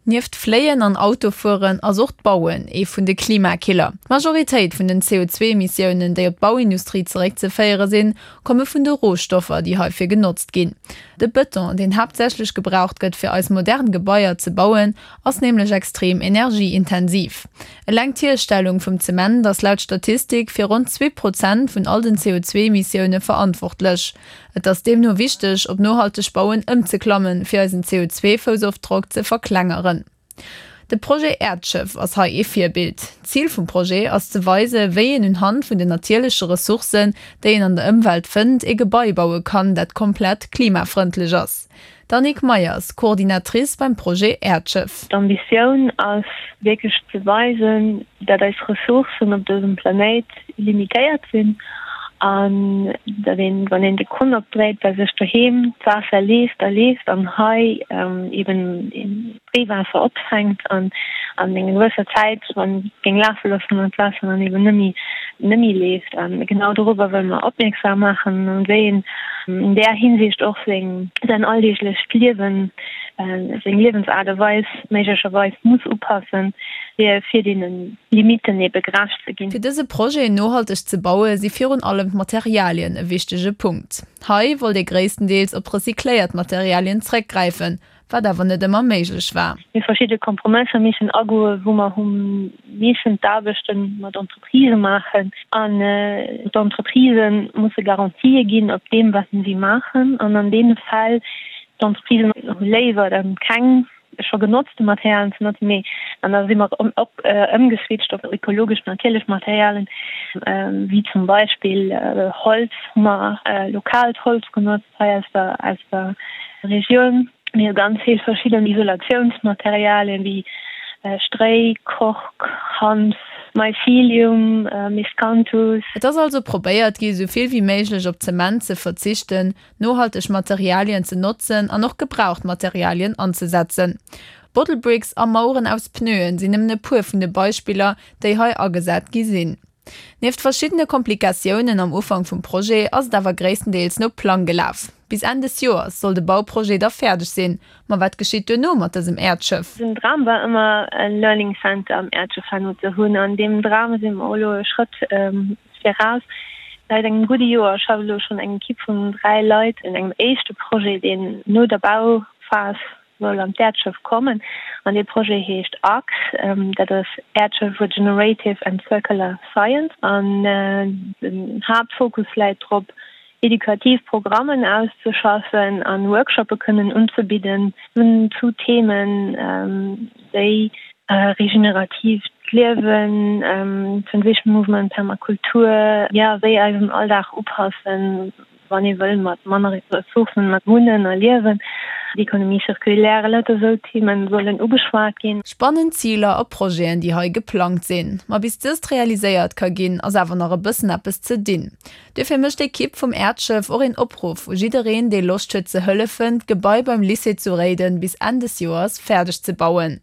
Nieft Fléien an Autofueren ass och d'Bauen ee vun de Klimakiller. D'Majoritéit vun den CO2-Emissiounen, déi op d'Bauindustrie zeréckzeféiere sinn, komme vun de Rohstoffer, déi heifir genotzt ginn. De Bëton, deen haaptsächlech gebraucht gëtt, fir eis modern Gebaier ze bauen, ass nämlech extrem energieintensiv. Eleng d'Hierstellung vum Zement ass laut Statistik fir ronn 2 Prozent vun all den CO2-Emissioune verantwortlech. Et ass deemno wichteg, op nohalteg Bauen ëmzeklammen, fir eisen CO2-Foussofdrock ze verklengeren. De Projet Äerdschëff ass hei ee Virbild. D'Zil vum Projet ass ze weise wéi een un Hand vun den natierleche Ressourcen, déi een an der Ëmwelt fënnt, ee Gebai baue kann, dat komplett klimafrëndlech ass. D'Annick Meyers, Coordinatrice beim Projet Äerdschëff. D'Ambitioun ass wierklech ze weisen, dat eis Ressourcen op dësem Planéit limitéiert sinn an datt een, wann een de Krunn opdréit, bei sech doheem d'Waasser leeft a leeft an hei eben d'Reewaasser opfänkt an an enger gewësser Zäit, wann et géing lafe loossen, dann d'Waasser dann eben net méi net méi leeft. A genau dorobber wëlle mer opmierksam maachen an wéi een an där Hinsicht och seng säin alldeeglecht Liewen, seng Liewensaart a Weis méiglecherweis muss upassen, fir fir deene Limitten ebe gerecht ze ginn. Fir dëse Projet nohalteg ze baue si virun allem d'Materialien e wichtege Punkt. Hei wollt ee gréisstendeels op recycléiert Materialien zréckgräifen, wat awer net ëmmer méiglech war. Mir verschidde Kompromësser missen agoen, wou mer hu missen d'Aarbechte mat Entreprisë maachen an d'Entreprisë musse Garantië ginn op deem, wat si maachen. An an deene Fäll, d'Entreprisen hu léiwer dann keng scho genotzte Materialien ze notzen, mee an da si mer op ëmgeswitcht op ökologesch natierlech Materialien, wéi zum Beispill Holz, hu mer lokaalt Holz genotzt hei aus der aus der Regioun. Mir hu ganz vill verschidden Isolatiounsmaterialien, wéi Stréi, Kork, Hanf, Mycelium, Miscanthus. Et ass also probéiert gi sou vill wéi méiglech op Zement ze verzichten, nohalteg Materialien ze notzen an och gebraucht Materialien anzesetzen. Bottle Bricks a Maueren aus Pneuen sinn nëmmen e puer vun de Beispiller, déi hei agesat gi sinn. Nieft verschiddene Komplikatiounen am Ufank vum Projet ass et awer gréisstendeels no Plang gelaf. Bis Enn des Joers soll de Bauprojet da fäerdeg sinn. Ma wat geschitt duerno mat dësem Äerdschëff? Den Dram war ëmmer e Learning Center am Äerdschëff herno ze hunn. An deem Dram si mer elo e Schrëtt Viraus. Säit engem gudde Joer schafft elo schonn eng Ekipp vun 3 Leit un engem éischte Projet, deen no der Bauphas soll an d'Äerdschëff kommen. An dee Projet heescht ARCS, dat ass Äerdschëff Regenerative and Circular Science. An den Haaptfokus läit drop, edukativ Programmen auszeschaffen an Workshoppe kënnen unzebidden zu Themen wéi regeneratiivt Liewen, Transition Movement, Permakultur, jo wéi eisen Alldag upassen, wann ee wëll mat manner Ressourcen mat wunnen a liewen, d'Economie circulaire, lauter esou Themen sollen ugeschwat ginn. Spannend Ziler a Projeten, déi hei geplangt sinn. Ma bis dëst realiséiert ka ginn, ass awer nach e bëssen eppes ze dinn. Duerfir mécht d'Ekipp vum Äerdschëff och een Opruff u jiddereen, dee Loscht huet ze hëllefen, d'Gebai beim Lycée zu Réiden bis Enn des Joers fäerdeg ze bauen.